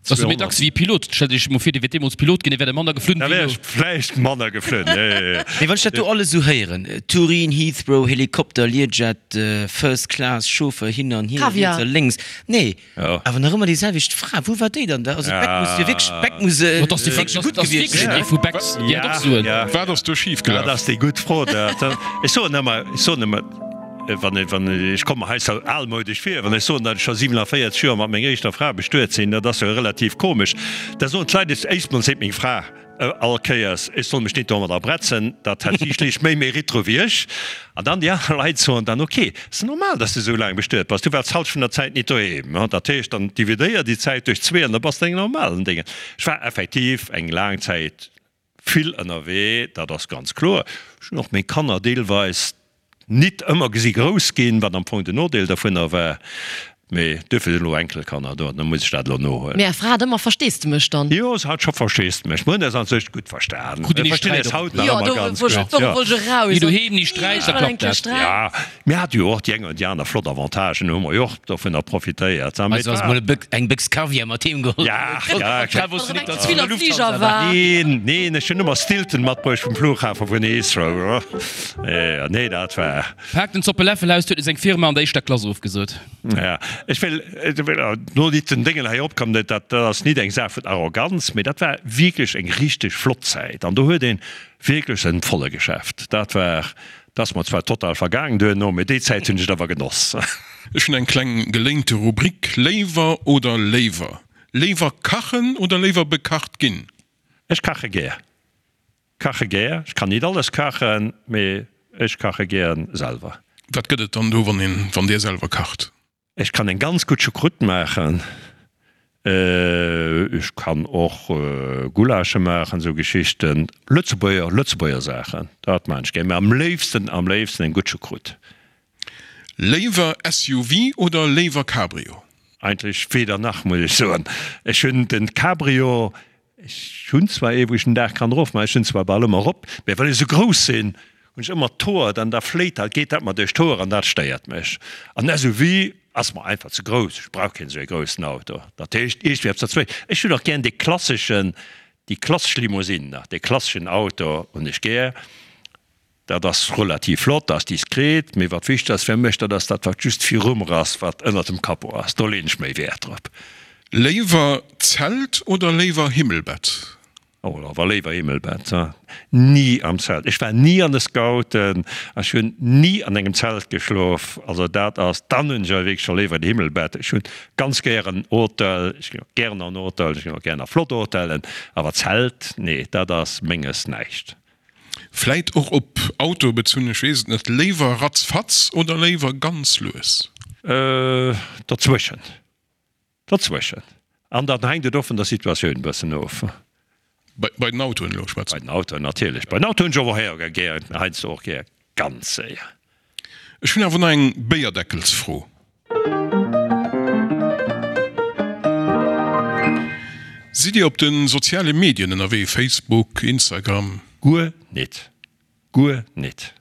Dat ass jo méi dacks wéi e Pilot. Stellt Iech emol vir, Dir wiert deemools Pilot ginn, Dir wäert manner geflunn Da wéi wär elo. ech vläicht manner geflunn, jo, jo, jo. Mee wann ech dat do alles esou héieren, Turin, Heathrow, Helikopter, Learjet, First Class, Chauffeur hin an hier, Kaviar. riets a lénks, nee, Jo. awer nach ëmmer déi selwecht Fra, wou war déi dann da? Also d'Beck muss jo wierklech, d'Beck muss Ma dass déi wierklech gutt dass gewiescht wierklech sinn. déi vu Becks, déi hätt och Suen. Ja, Wat ass do schif dat gelaf? ass déi gutt Fro. Dat, ech soen ëmmer, ech soen ëmmer, Wann ech, wann ech, ech komme mer hei sou almoudesch vir, wann ech soen, datt ech scho 47 Joer mat menger éischter Fra bestuet sinn, dat ass jo relativ komesch. Da soen d'Leit, ech, éischt mol seet meng Fra all Kéiers, ech soll mech nit domadder bretzen, dat hätt si schlicht méi Mérite dru wéi ech. An dann déi aner Leit soen dann, ok, ass normal, datt s de sou laang bestuet bass, du waars d'Halschent vun der Zäit nit doheem. Dat heescht, dann dividéier déi Zäit duerch zwee an da bass de eng normalen Déngen. Ech war effektiv eng laang Zäit vill ënnerwee, dat ass ganz kloer. Ech hunn och meng Kanner deelweis nit ëmmer gesi grouss ginn, wat am Fong den Nodeel dovunner war. Mee duerfir sinn elo Enkelkanner do an da muss ech dat elo nohuelen. Mee Är Fra hat ëmmer Versteesdemech dann? Jo, se hat scho Versteesdemech. Mir hunn eis an sech gutt verstan. Krut Dir Mir ni verstinn Sträit eis op? haut nach Jo, ëmmer do ganz wollt gutt. ech, Jo. wollt ech eraus. Ni doheem, ni Sträit, da klappt dat. Ja, mir hate jo och déi eng oder déi aner flott Avantagen, do hu mer jo och dovunner profitéiert. Mee Also et ass war. mol e Bëck, eng Béchs Kaviar mat heem geholl. Ja, ja. D'Fra wosst jo nik, Wann datt eng se vun der Zwiller Lufthansa Fliger war. war. Neen, neen, ech hunn ëmmer Stilton matbruecht vum Flughafe vun Heathrow. Nee, dat war. Paakt den Zoppe Läffel aus, huet e seng Firma an der éischter Klass ofgesot. Ja, ech wéll no nit den Déngen hei opkommen, dat dat ass nit eng Saach vun Arroganz, mee dat war wierklech eng richteg flott Zäit an do huet een wierklech en volle Geschäft. Dat war, dat ass mer zwar total vergaangen duerno, mee déi Zäit hunn ech et awer genoss. Ech hunn eng kleng geléinte Rubrik, Léiwer oder léiwer? Léiwer kachen oder léiwer bekacht ginn? Ech kache gär. Kache gär. Ech kann nit alles kachen, mee ech kache gären selwer. Wat gëtt et dann do, wann een, wann dir selwer kacht? Ech kann eng ganz gutt Choucroute maachen. Ech kann och Gulasche maachen, esou Geschichten. Lëtzebuerger, Lëtzebuerger Saachen, dat maan ech gär. Mee am léifsten, am léifsten eng gutt Choucroute. Léiwer SUV oder léiwer Cabrio? Eigentlech weder nach, muss ech soen. Ech hunn den Cabrio, ech hunn zwar ee wou ech den Daach kann erof maachen, ech hunn zwar bal ëmmer erop, mä well ech esou grouss sinn, hunn ech ëmmer d'Hoer, dann da fléit dat, geet dat mer duerch d'Hoer an dat stéiert mech. An SUV ass mer einfach ze grouss, ech brauch keen esou ee groussen Auto. Dat heescht iergendwéi eppes derzwëschen. Ech hunn och gären dee klasseschen, déi klassesch Limousine nach, dee klasseschen Auto hunn ech gär. Dat ass relativ flott, ass diskret, mee wat wichteg ass fir mech, dat ass dat wat just viru mer ass, wat ënnert dem Capot ass. Do leen ech méi Wäert drop. Léiwer Zelt oder léiwer Himmelbett? Oh, awer léiwer Himmelbett. Ni am Zelt. Ech war ni an de Scouten, ech hunn ni an engem Zelt geschlof. Also dat ass, dann hunn ech awer wierklech scho léiwer en Himmelbett. Ech hunn ganz gären Hotel, ech ginn och gären an Hotel, ech ginn och gären a flott Hotellen, awer Zelt, nee, dat ass menges näischt. Vläit och op Auto bezunn, ech weess et net. Léiwer ratzfatz oder léiwer ganz lues? Dozwëschen. Dozwëschen. An dann hänkt et och vun der Situatioun e bëssen of. Bei den Autoen elo schwätze mer. Bei den Autoen natierlech. Bei den Autoen hunn ech och héier gär, heiansdo och gär ganz séier. Ech hunn awer nach eng Béierdeckelsfro. Sidd Dir op de soziale Medien ënnerwee, Facebook, Instagram? Guer nit. Guer nit.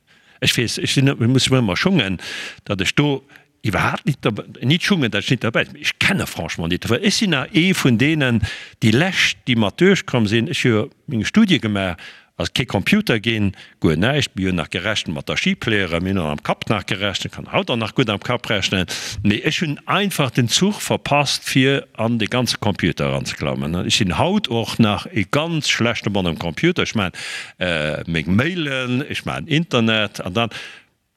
Ech weess, ech sinn, ech muss mech ëmmer schungen, datt ech do iwwerhaapt nit derbäi, nit schungen, datt ech nit derbäi sinn, mee ech kenne franchement nit dofir. Ech sinn nach ee vun deenen, déi lescht, déi mat duerchkomm sinn. Ech hu jo meng Studie gemaach Ass kee Computer ginn, guer näischt. Mir hunn nach gerechent mat der Schipleere, mir hunn och am Kapp nach gerechent, kann haut och nach gutt am Kapp rechnen, mee ech hunn einfach den Zuch verpasst fir an de ganze Computer eranzeklammen. Ech sinn haut och nach e ganz schlechte Mann um Computer, ech maachen meng Mailen, ech maachen Internet an dann.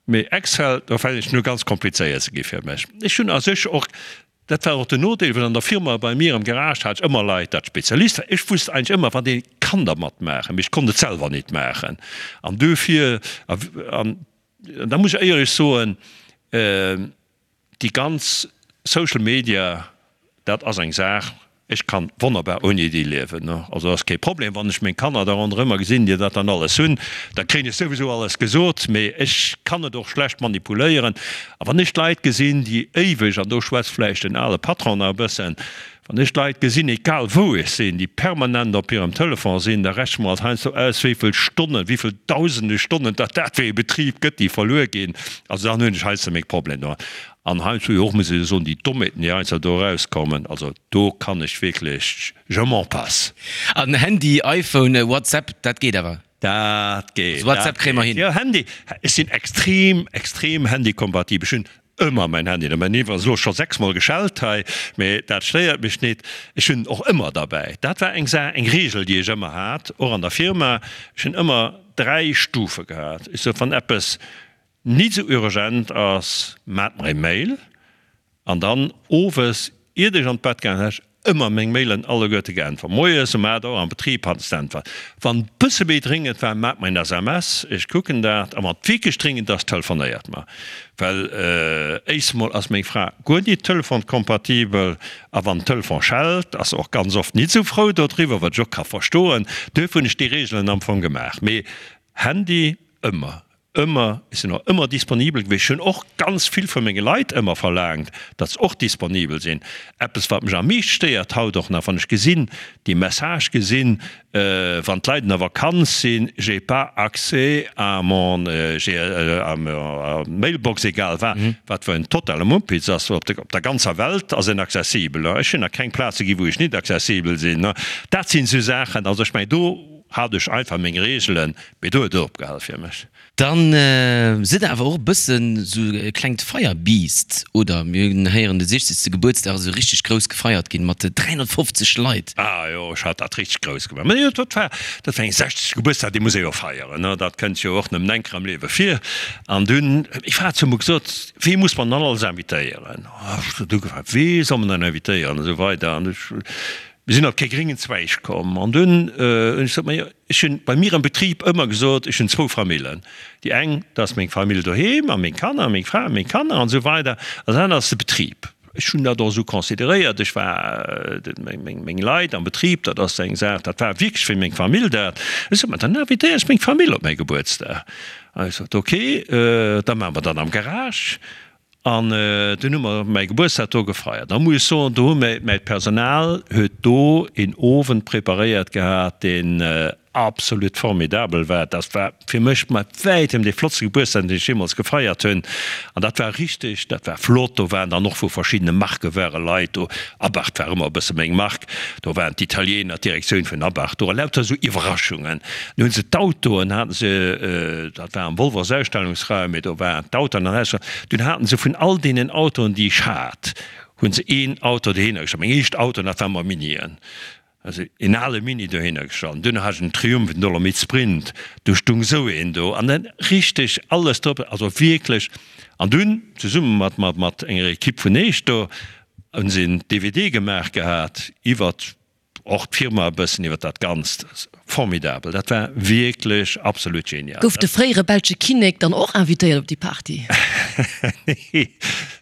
Mee Excel, do fänkt et un ganz komplizéiert ze gi fir mech. Ech hunn a sech och, dat war och den Nodeel, well an der Firma bei mir am Garage hat ech ëmmer Leit, dat Spezialiste waren. Ech wusst eigentlech ëmmer, wat ee kann dermat maachen, mee ech konnt et selwer nit maachen. An duerfir, an da muss ech éierlech soen, Déi ganz Social Media, dat ass eng Saach, ech kann wonnerbar ouni déi liewen. Also ass kee Problem. Wann ech meng Kanner da ronderëmmer gesinn, déi dat dann alles hunn, da kréien ech souwisou alles gesot, mee ech kann et och schlecht manipuléieren. A wann ech d'Leit gesinn, déi éiweg, an do schwätzt vläicht den ale Patron nach e bëssen, Wann ech d'Leit gesinn, egal wou ech sinn, déi permanent op hirem Telefon sinn, da rechne mer alt heiansdo aus, wéi vill Stonnen, wéi vill dausende Stonnen datt dat fir ee Betrib gëtt, déi verluer ginn. Also dann hunn ech heiansdo meng Problemer domat. An heiansdo jo och, muss ech soen, déi Dommheeten, déi heiansdo do erauskommen, also do kann ech wierklech, je m'en passe. An Handy, iPhone, WhatsApp, dat geet awer? Dat geet. Also WhatsApp kréie mer hin. Jo, Handy, ech sinn extrem, extrem handykompatibel. Ech hunn ëmmer mäin Handy dobäi. Mäin ass elo scho sechsmol geschellt hei, mee dat stéiert mech nit. Ech hunn en och ëmmer derbäi. Dat war eng Saach, eng Reegel, déi ech ëmmer hat, och an der Firma. Ech hunn ëmmer 3 Stufe gehat. Ech sot, wann eppes nit esou urgent ass, maacht mer e Mail. An dann owes, iert ech an d'Bett gaangen, hat ech ëmmer meng Mailen alleguerte geäntwert. Moies um 8 Auer am Betrib hat ech d'Äntwert. Wann et bësse méi dréngend war, maacht mer en SMS, ech kucken dat. A wann et wierklech dréngend ass, telefonéiert mer. Well éischst emol ass meng Fra guer nit telefonkompatibel a wann den Telefon schellt, ass se och ganz oft nit esou frou dodriwwer, wat ech och ka verstoen. Duerfir hunn ech déi Reegelen am Fong gemaach. Mee Handy ëmmer. Ëmmer, ech sinn och ëmmer disponibel gewiescht. Ech hunn och ganz vill vu menge Leit ëmmer verlaangt, datt se och disponibel sinn. Eppes, wat mech am meescht stéiert haut och nach, wann ech gesinn, déi Message gesinn, wann d'Leit an der Vakanz sinn, j'ai pas accès à mon, à ma mailbox, egal wat, wat fir en totale Mumpitz ass, op der ganzer Welt ass en accessibel. Ech hunn nach keng Plaze ginn, wou ech nit accessibel sinn. Dat sinn esou Saachen, also ech mengen, do hat ech einfach meng Reegelen, Mee do huet et opgehal fir mech. Dann sidd der awer och e bëssen sou e klengt Feierbiest, oder? Mir hunn héieren, de 60. Gebuertsdag ass esou richteg grouss gefeiert ginn, mat 350 Leit. Ah jo, ech hat dat richteg grouss gemaach. Mä jo, dat war, dat war eng 60. Gebuertsdag, dee muss ee jo feieren, ne? Dat kënnt jo och nëmmen eng Kéier am Liewe vir. An dunn, ech hat zu mer gesot, Wee muss mer dann alles invitéieren? Ech huet ugefaangen, Wee soll mer dann invitéieren? An esou weider. An ech, mir sinn op kee gréngen Zweig komm. An dunn hunn ech gesot, Ma jo, Ech hunn bei mir am Betrib ëmmer gesot, ech hunn zwou Famillen. Déi eng, dat ass meng Famill doheem a meng Kanner a meng Fra a meng Kanner an esou weider an dat anert ass de Betrib. Ech hunn dat och esou consideréiert. Ech war, meng Leit am Betrib, dat ass eng Saach, dat war wierklech wéi meng Famill dat. Ech sot, ma dann invitéieren ech meng Famill op mäi Gebuertsdag. An ech sot, ok, da maache mer dat am Garage. An dunn hu mer mäi Gebuertsdag do gefeiert. Da muss ech soen, do hu mir, mäi Personal huet do een Owend preparéiert gehat, deen absolut formidabel war. Dat war fir mech mat wäitem dee flottste Gebuertsdag, deen ech jeemools gefeiert hunn. An dat war richteg, dat war flott. Do waren dann och vu verschiddene Marke ware Leit do. Abarth war ëmmer e bësse meng Mark. Do waren d'Italiener, d'Direktioun vun Abarth do a lauter esou Iwwerraschungen. Dann hunn se d'Autoen, haten se, dat war am Wolvers Ausstellungsraum, mee do waren d'Autoen an Ausstellung, dunn haten se vun all deenen Autoen, déi ech hat, hunn se een Auto dohinner gestallt. Meng éischt Autoen, dat waren mer Minien, also een ale Mini dohinner gestallt. Dunn hat ech en Triumph, en Dolomit Sprint, do stung esou een do an dann richteg alles drop, also wierklech. An dunn zesumme mat, mat, mat enger Equipe vun Eech do, Hunn se en DVD gemaach gehat iwwert och d'Firma e bëssen, iwwert dat Ganzt. Formidabel, dat war wierklech absolut genial. Gouf de fréiere belsche Kinnek dann och invitéiert op déi Party? Nee,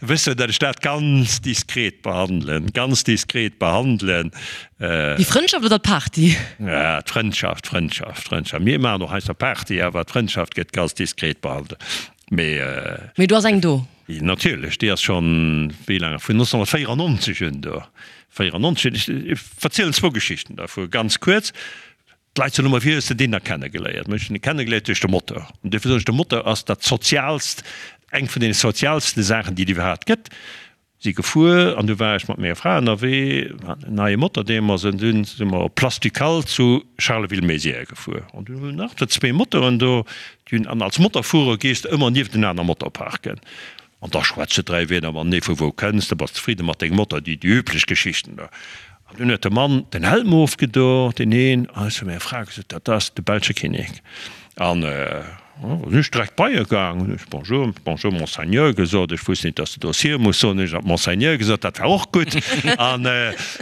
wëss jo, datt ech dat ganz diskret behandelen, ganz diskret behandelen. Déi Frëndschaft oder d'Party? Ja, d'Frëndschaft, d'Frëndschaft, d'Frëndschaft. Mir maachen och heiansdo Party, awer d'Frëndschaft gëtt ganz diskret behandelt. Mee. Mee do ass eng do. Natierlech, déi ass schonn, wéi laang, vun 1994 un do. 94, ech verzielen zwou Geschichten dervu ganz kuerz. D'Leit soen ëmmer, wéi hues de deen da kennegeléiert? Mä ech hunn e kennegeléiert duerch de Motor. An duerfir soen ech, de Motor ass dat soziaalst, eng vun deene soziaalste Saachen, déi et iwwerhaapt gëtt. Si gefuer an du war ech mat menger Fra ënnerwee, mir haten en neie Motor deemools an dunn si mer op Place Ducale zu Charleville-Mézières gefuer an dunn hunn nach der zwee Motoren do, déi hunn, an als Motorfuerer gees de ëmmer nieft en aner Motor parken an da schwätz de dräi Wierder matenee, vu wou kënns de, bass zefridde mat dengem Motor, déi üblech Geschichten do. An dunn huet de Mann den Helm ofgedo, deen een, an ech hu menger Fra gesot, dat ass de belsche Kinnek. An sinn ech direkt bei e gaang, hunn ech Bonjour, bonjour Monseigneur gesot. Ech wusst net, datt de do Sir muss soen, hunn ech nach Monseigneur gesot, dat war och gutt. An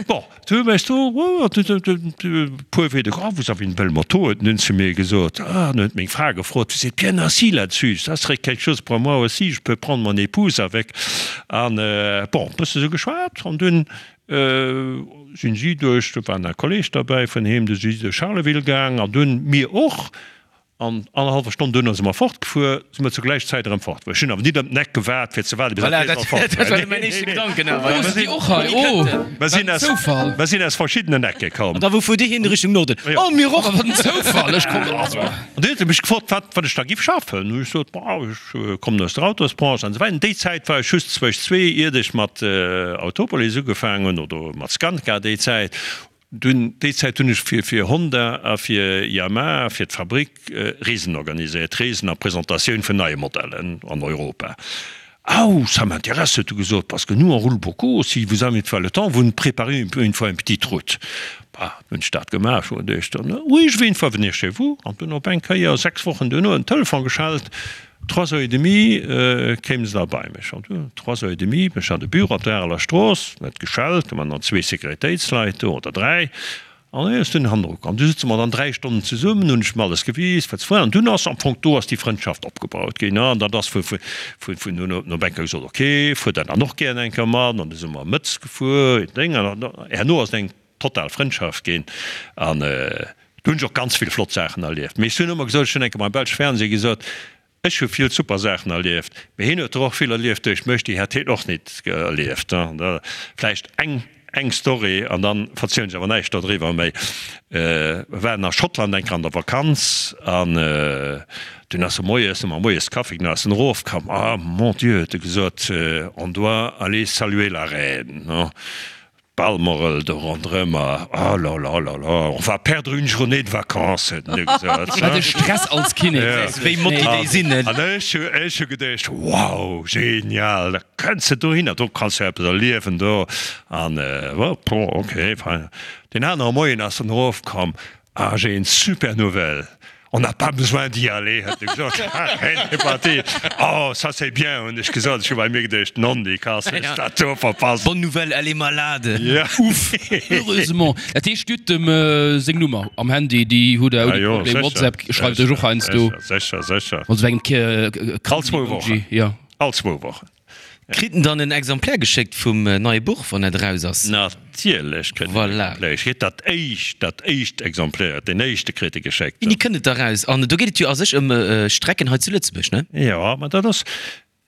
bon, du hues du e puer Wieder, oh, vous avez une belle moto, huet en dunn zu mir gesot. Ah, an huet meng Fra gefrot, vous êtes bien assis là-dessus, ça serait quelque chose pour moi aussi, je peux prendre mon épouse avec. An bon, e bësse sou geschwat an dunn Sinn si duerch, do war nach e Kolleg derbäi vun him, du si si duerch Charleville gaang an dunn mir och. An annerhallwer Stonn duerno si mer fortgefuer, si mer zur gläicher Zäit erëm fortgefuer. Ech hunn awer nit ëm den Eck gewaart fir ze waarden, bis dat Rees fort war. Mer sinn aus, mer sinn aus verschiddenen Ecke komm. An da wou fuert Dir hin? Richtung Norden? Oh, mir och! Wat en Zoufall! Ech komm, also. An du huet e mech gefrot, wat, wat ech da giff schaffen. Hu ech gesot, Bah, ech kommen aus der Autosbranche an esou weider. Déi Zäit war ech just zwëscht zwee, iert ech mat Autopolis ugefaangen hunn oder mat Skanska déi Zäit. Dunn, déi Zäit hunn ech fir fir Honda a fir Yamaha, fir d'Fabrik, Reesen organiséiert, Reesen a Presentatioun vun neie Modellen an Europa. Au, ça m'intéresse, huet e gesot, parce que nous on roule beaucoup, si vous avez une fois le temps, vous nous préparez une fois une petite route. Bah, hunn ech dat gemaach, ech hunn geduecht, oui, je vais une fois venir chez vous. An dunn op eng Kéier, 6 Wochen duerno, en Telefon geschellt, trois heures et demie kéim se da bei mech. An dunn, trois heures et demie, ech hat e Büro op der Areler Strooss, huet geschellt, do waren dann zwee Sécuritéitsleit do, oder dräi, an hie ass dunn hannendru komm. Du sëtze mer dann dräi Stonnen zesummen, hunn ech em alles gewis, wat se wollen. An dunn ass am Fong, do ass déi Frëndschaft opgebaut ginn. An dat ass vu, vu, vun dunn op eng Kéier gesot, ok, fuer der dann och gären eng Kéier mat. An du si mer mëttes gefuer, Déng, an herno ass et eng total Frëndschaft ginn an do hunn ech och ganz vill flott Saachen erlieft. Mee ech hunn ëmmer gesot, ech hunn eng Kéier beim belsche Fernseh gesot, ech. Ech hu vill super Saachen erlieft, mee hien huet der och vill erlieft duerch mech, déi hätt hien och nit erlieft. Vläicht eng eng Story an dann verzielen ech awer näischt dodriwwer méi. Mir waren a Schottland eng Kéier an der Vakanz an dunn ass e moies, hu mer moies Kaffi, dunn ass en erofkomm, Ah mon Dieu, huet e gesot, on doit aller saluer la reine. Balmoral do ronderëm a oh la la la la, on va perdre une journée de vacances, huet en du gesot. Wat e Stress als Kinnek! Wéi motti déi sinn, ne? An ech hu, ech hu geduecht, wow, genial, da kënns de dohinner, do kanns de eppes erliewen do. An bon, ok, fein. Deen anere Moien ass en erofkomm, ah, j'ai une super nouvelle, On n'a pas besoin d'y aller, huet e gesot. Est parti. Oh, ça c'est bien, hunn ech gesot. Ech hu bei mir geduecht, Nondikass, hues dat do verpasst. Bonne nouvelle, elle est malade. Ja. Uff, heureusement. Dat heescht, Dir hutt dem seng Nummer am Handy, déi hutt Der ouni Problem. WhatsApp schreift Iech och heiansdo. Sécher, sécher. Mat esou engem All zwou Wochen. Jo. All zwou Wochen. Kritt en dann en Exemplaire geschéckt vum neie Buch, wann dat eraus ass? Natierlech kritt en Voilà. Exemplaire geschéckt. Dat éischt, dat éischt Exemplaire, deen éischte kritt e geschéckt. Wéini kënnt et da raus? An do geet et jo a sech ëm Strecken hei zu Lëtzebuerg, ne? Jo, ma dat ass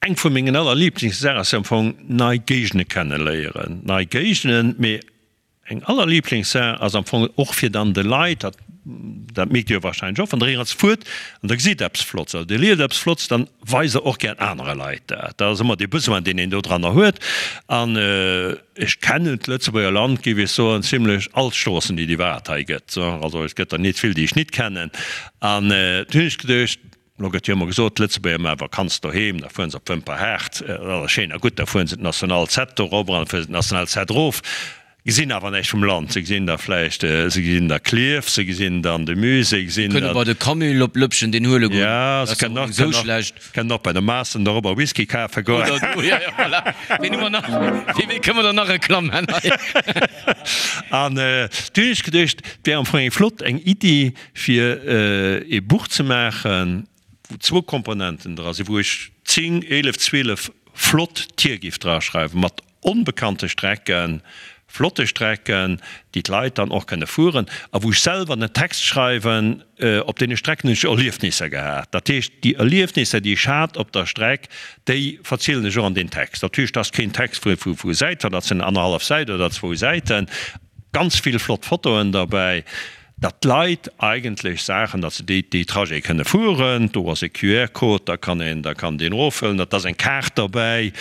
eng vu mengen allerliiblingssaachen, ass jo am Fong nei Géigende kenneléieren. Nei Géigenden, mee Eng Allerliiblingssaach ass am Fong och fir dann de Leit, dat dat mierkt Dir jo wahrscheinlech och, wann Der éierens fuert an Der gesitt eppes Flotts oder Dir liest eppes Flotts, dann weist Der och gär anere Leit dat. Dat ass ëmmer dee Besoin, deen een dodranner huet. An ech kennen d'Lëtzebuerger Land, géif ech soen, zimlech all d'Stroossen, déi et iwwerhaapt hei gëtt. Also et gëtt der nit vill, déi ech nit kennen. An du hunn ech geduecht, Lo gëtt jo ëmmer gesot, d'Lëtzebuerger maache Vakanz doheem, da fueren se op Wëmperhaart, dat ass schéin a gutt, da fueren se d'National 7 do erop an da fuere se d'National 7 erof, gesinn awer näischt vum Land. Se gesinn da vläicht, se gesinn da Klierf, se gesinn dann de Musée, gesinn Kënne bei de Camill op Lëppchen deen huele goen, Ja, dat se ass och kënnen net esou schlecht. kënnen och bei de Maaßen dorobber Whisky kafe goen. Oder do, ja, ja, voilà. Ween hu mer nach? Fir wee kënne mer dann nach Reklamm man hei? An du hunn ech geduecht, et wär am Fong eng flott, eng Iddi, fir ee Buch ze maachen, wou zwou Komponenten dra sinn, wou ech 10, 11, 12 flott Tier giff draschreiwen, mat onbekannte Strecken, flotte Strecken, déi d'Leit dann och kënne fueren, a wou ech selwer den Text schreiwen, op deene Strecken hunn ech Erliefnisser gehat. Dat heescht, déi Erliefnisser, déi ech hat op der Streck, déi verzielen ech och an deem Text. Natierlech, dat ass keen Text vu vu Säit, dat sinn annerhallef Säit oder zwou Säiten, ganz vill flott Fotoen derbäi. Datt d'Leit eigentlech Saachen, datt se déi déi Trajete kënne fueren, do ass e QR-Code, da kann een, da kann deen eroffëllen, dat ass eng Kaart derbäi,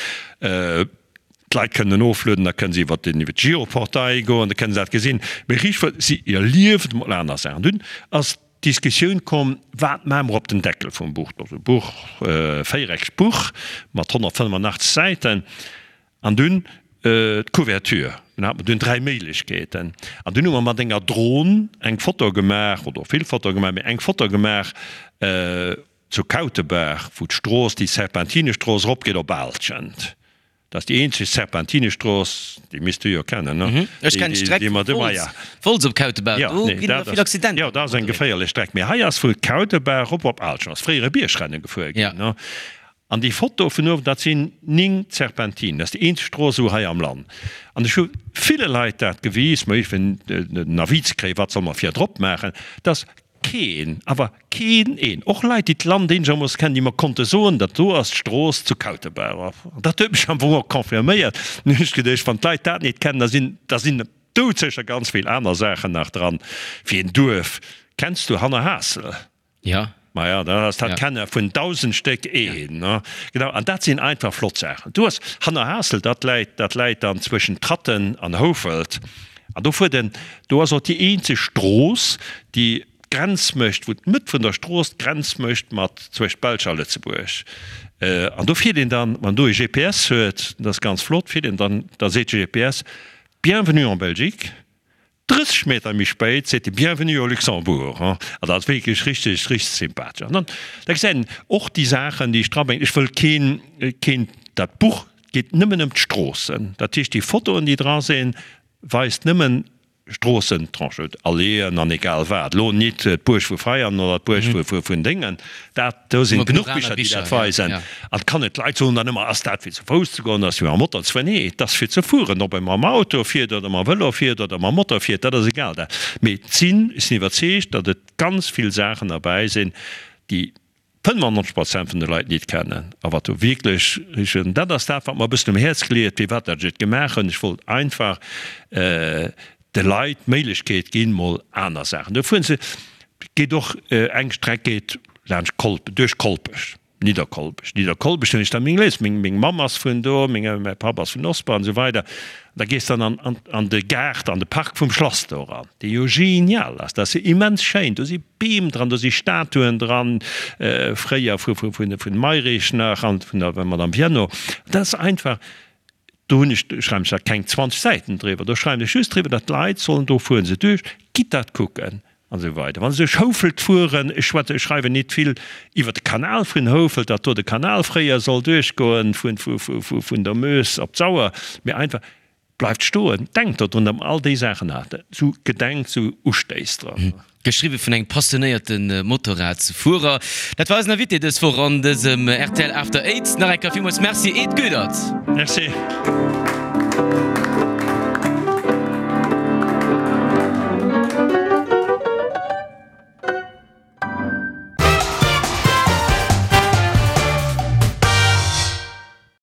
d'Leit kënnen en oflueden, da kënne se iwwer den iwwer d'Giroportail goen, da kënne se dat gesinn. Mee riicht wëll si erliewen emol aner Saachen. Dunn ass d'Diskussioun komm, wat maache mer op den Deckel vum Buch? Dat ass e Buch, véiereckegt Buch mat 185 Säiten. An dunn d'Couverture. Dunn hate mer dunn 3 Méiglechkeeten. An dunn hu mer mat enger Dron eng Foto gemaach, oder vill Fotoe gemaach, mee eng Foto gemaach zu Kautebaach, wou d'Strooss, déi Serpentinestrooss eropgeet op Aalschent. Dat ass déi eenzeg Serpentinestrooss, déi misst du jo kennen, ne? Ech kennen d'Streck vu Wolz, Wolz op Kautebaach, do ginn ëmmer vill Accidenter. Jo, dat ass eng geféierlech Streck. Mee hei ass vu Kautebaach erop op Aalschent, ass fréier e Biergrennen gefuer ginn, ne? An déi Foto vun uewen, dat sinn 9 Serpentinen. Dat ass déi eenzeg Strooss esou hei am Land. An ech hu ville Leit dat gewis, mä fir en Avis ze kréien, wat solle mer virdrop maachen, dass keen, awer keen een, och Leit, déi d'Land eenegermoosse kennen, déi mer konnte soen, dat do ass d'Strooss zu Kautebaach. An dat huet mech am Fong och confirméiert. Dann hunn ech geduecht, wann d'Leit dat net kennen, da sinn, da sinn doudsécher ganz vill aner Saachen nach dran. Wéi en Duerf. Kenns du Hannerhaassel? Ja. Maja, dat ass dat kenne vun 1.000 Stéck een, ne? Genau, an dat sinn einfach flott Saachen. Du hues Hannerhaassel, dat läit, dat läit dann zwëschen Tratten an Houfelt. An do fuert en, do ass och déi eenzeg Strooss, déi d'Grenz mécht, wou d'Mëtt vun der Strooss d'Grenz mécht mat zwëscht Belsch a Lëtzebuerg. An do fiert een dann, wann do e GPS huet, dat ass ganz flott, fiert een dann, da seet de GPS, Bienvenue en Belgique. 30 Meter méi spéit seet de Bienvenue au Luxembourg. An dat ass wierklech richteg, richteg sympathesch. An dann, da gesäit een och déi Saachen, déi ech drabréngen. Ech wëll keen, keen, dat Buch geet nëmmen ëm d'Stroossen. Dat heescht, déi Fotoen, déi dra sinn, weist nëmmen Stroossen, Tranchen, Alléeën an egal wat. Elo nit d'Buerg vu Veianen oder d'Buerg vu, vun Déngen. Dat, do sinn genuch Bicher, déi dat weisen. An et kann net, d'Leit soen dann ëmmer, ass dat fir zu Fouss ze goen, ass fir mam Motor ze fueren? Nee, et ass fir ze fueren, ob ee mam Auto fiert oder mam Vëlo fiert oder mam Motor fiert, dat ass egal. Dat, mee et sinn, ech sinn iwwerzeegt, datt et ganz vill Saachen derbäi sinn, déi. 95 Prozent vun de Leit nit kennen a wat do wierklech richteg, dat ass dat, wat mer e bëssen um Häerz gleet, firwat dat ech et gemaach hunn. Ech wollt einfach de Leit d'Méiglechkeet ginn, mol aner Saachen. Do fueren se, geet och eng Streck geet laanscht Kolp, duerch Kolpech. Nidderkolpech, Nidderkolpech hunn ech da meng Léis, meng meng Mamm ass vun do, meng mäi Papp ass vun Osper an esou weider. An da gees dann an an an de Gaart, an de Park vum Schlass do eran, dee jo genial ass, dat ass jo immens schéin, do si Beem dran, do si Statuen dran, fréier vu vu vun vun Mayrisch nach an vun der Madame Viennot. Dat ass einfach, do hunn ech, schreiwen ech da keng 20 Säiten driwwer, do schreiwen ech just driwwer, datt d'Leit sollen, do fuere se duerch, gitt dat kucken. An esou weider. Wann se duerch Houfelt fueren, ech schwätze, ech schreiwen nit vill iwwer de Kanal vun Houfelt, datt do de Kanal fréier soll duerchgoen vun, vu, vu, vu, vun der Meuse op d'Sauer, mee einfach, bleift stoen, denkt dodrun, datt mer all déi Saachen haten, sou gedenkt, sou Ustéiss dran. Geschriwwe vun engem passionéierte Motorradsfuerer. Dat war eisen Invité dës Woch an dësem rtl After Eight. Nach eng Kéier villmools Merci, Ed Goedert. Merci.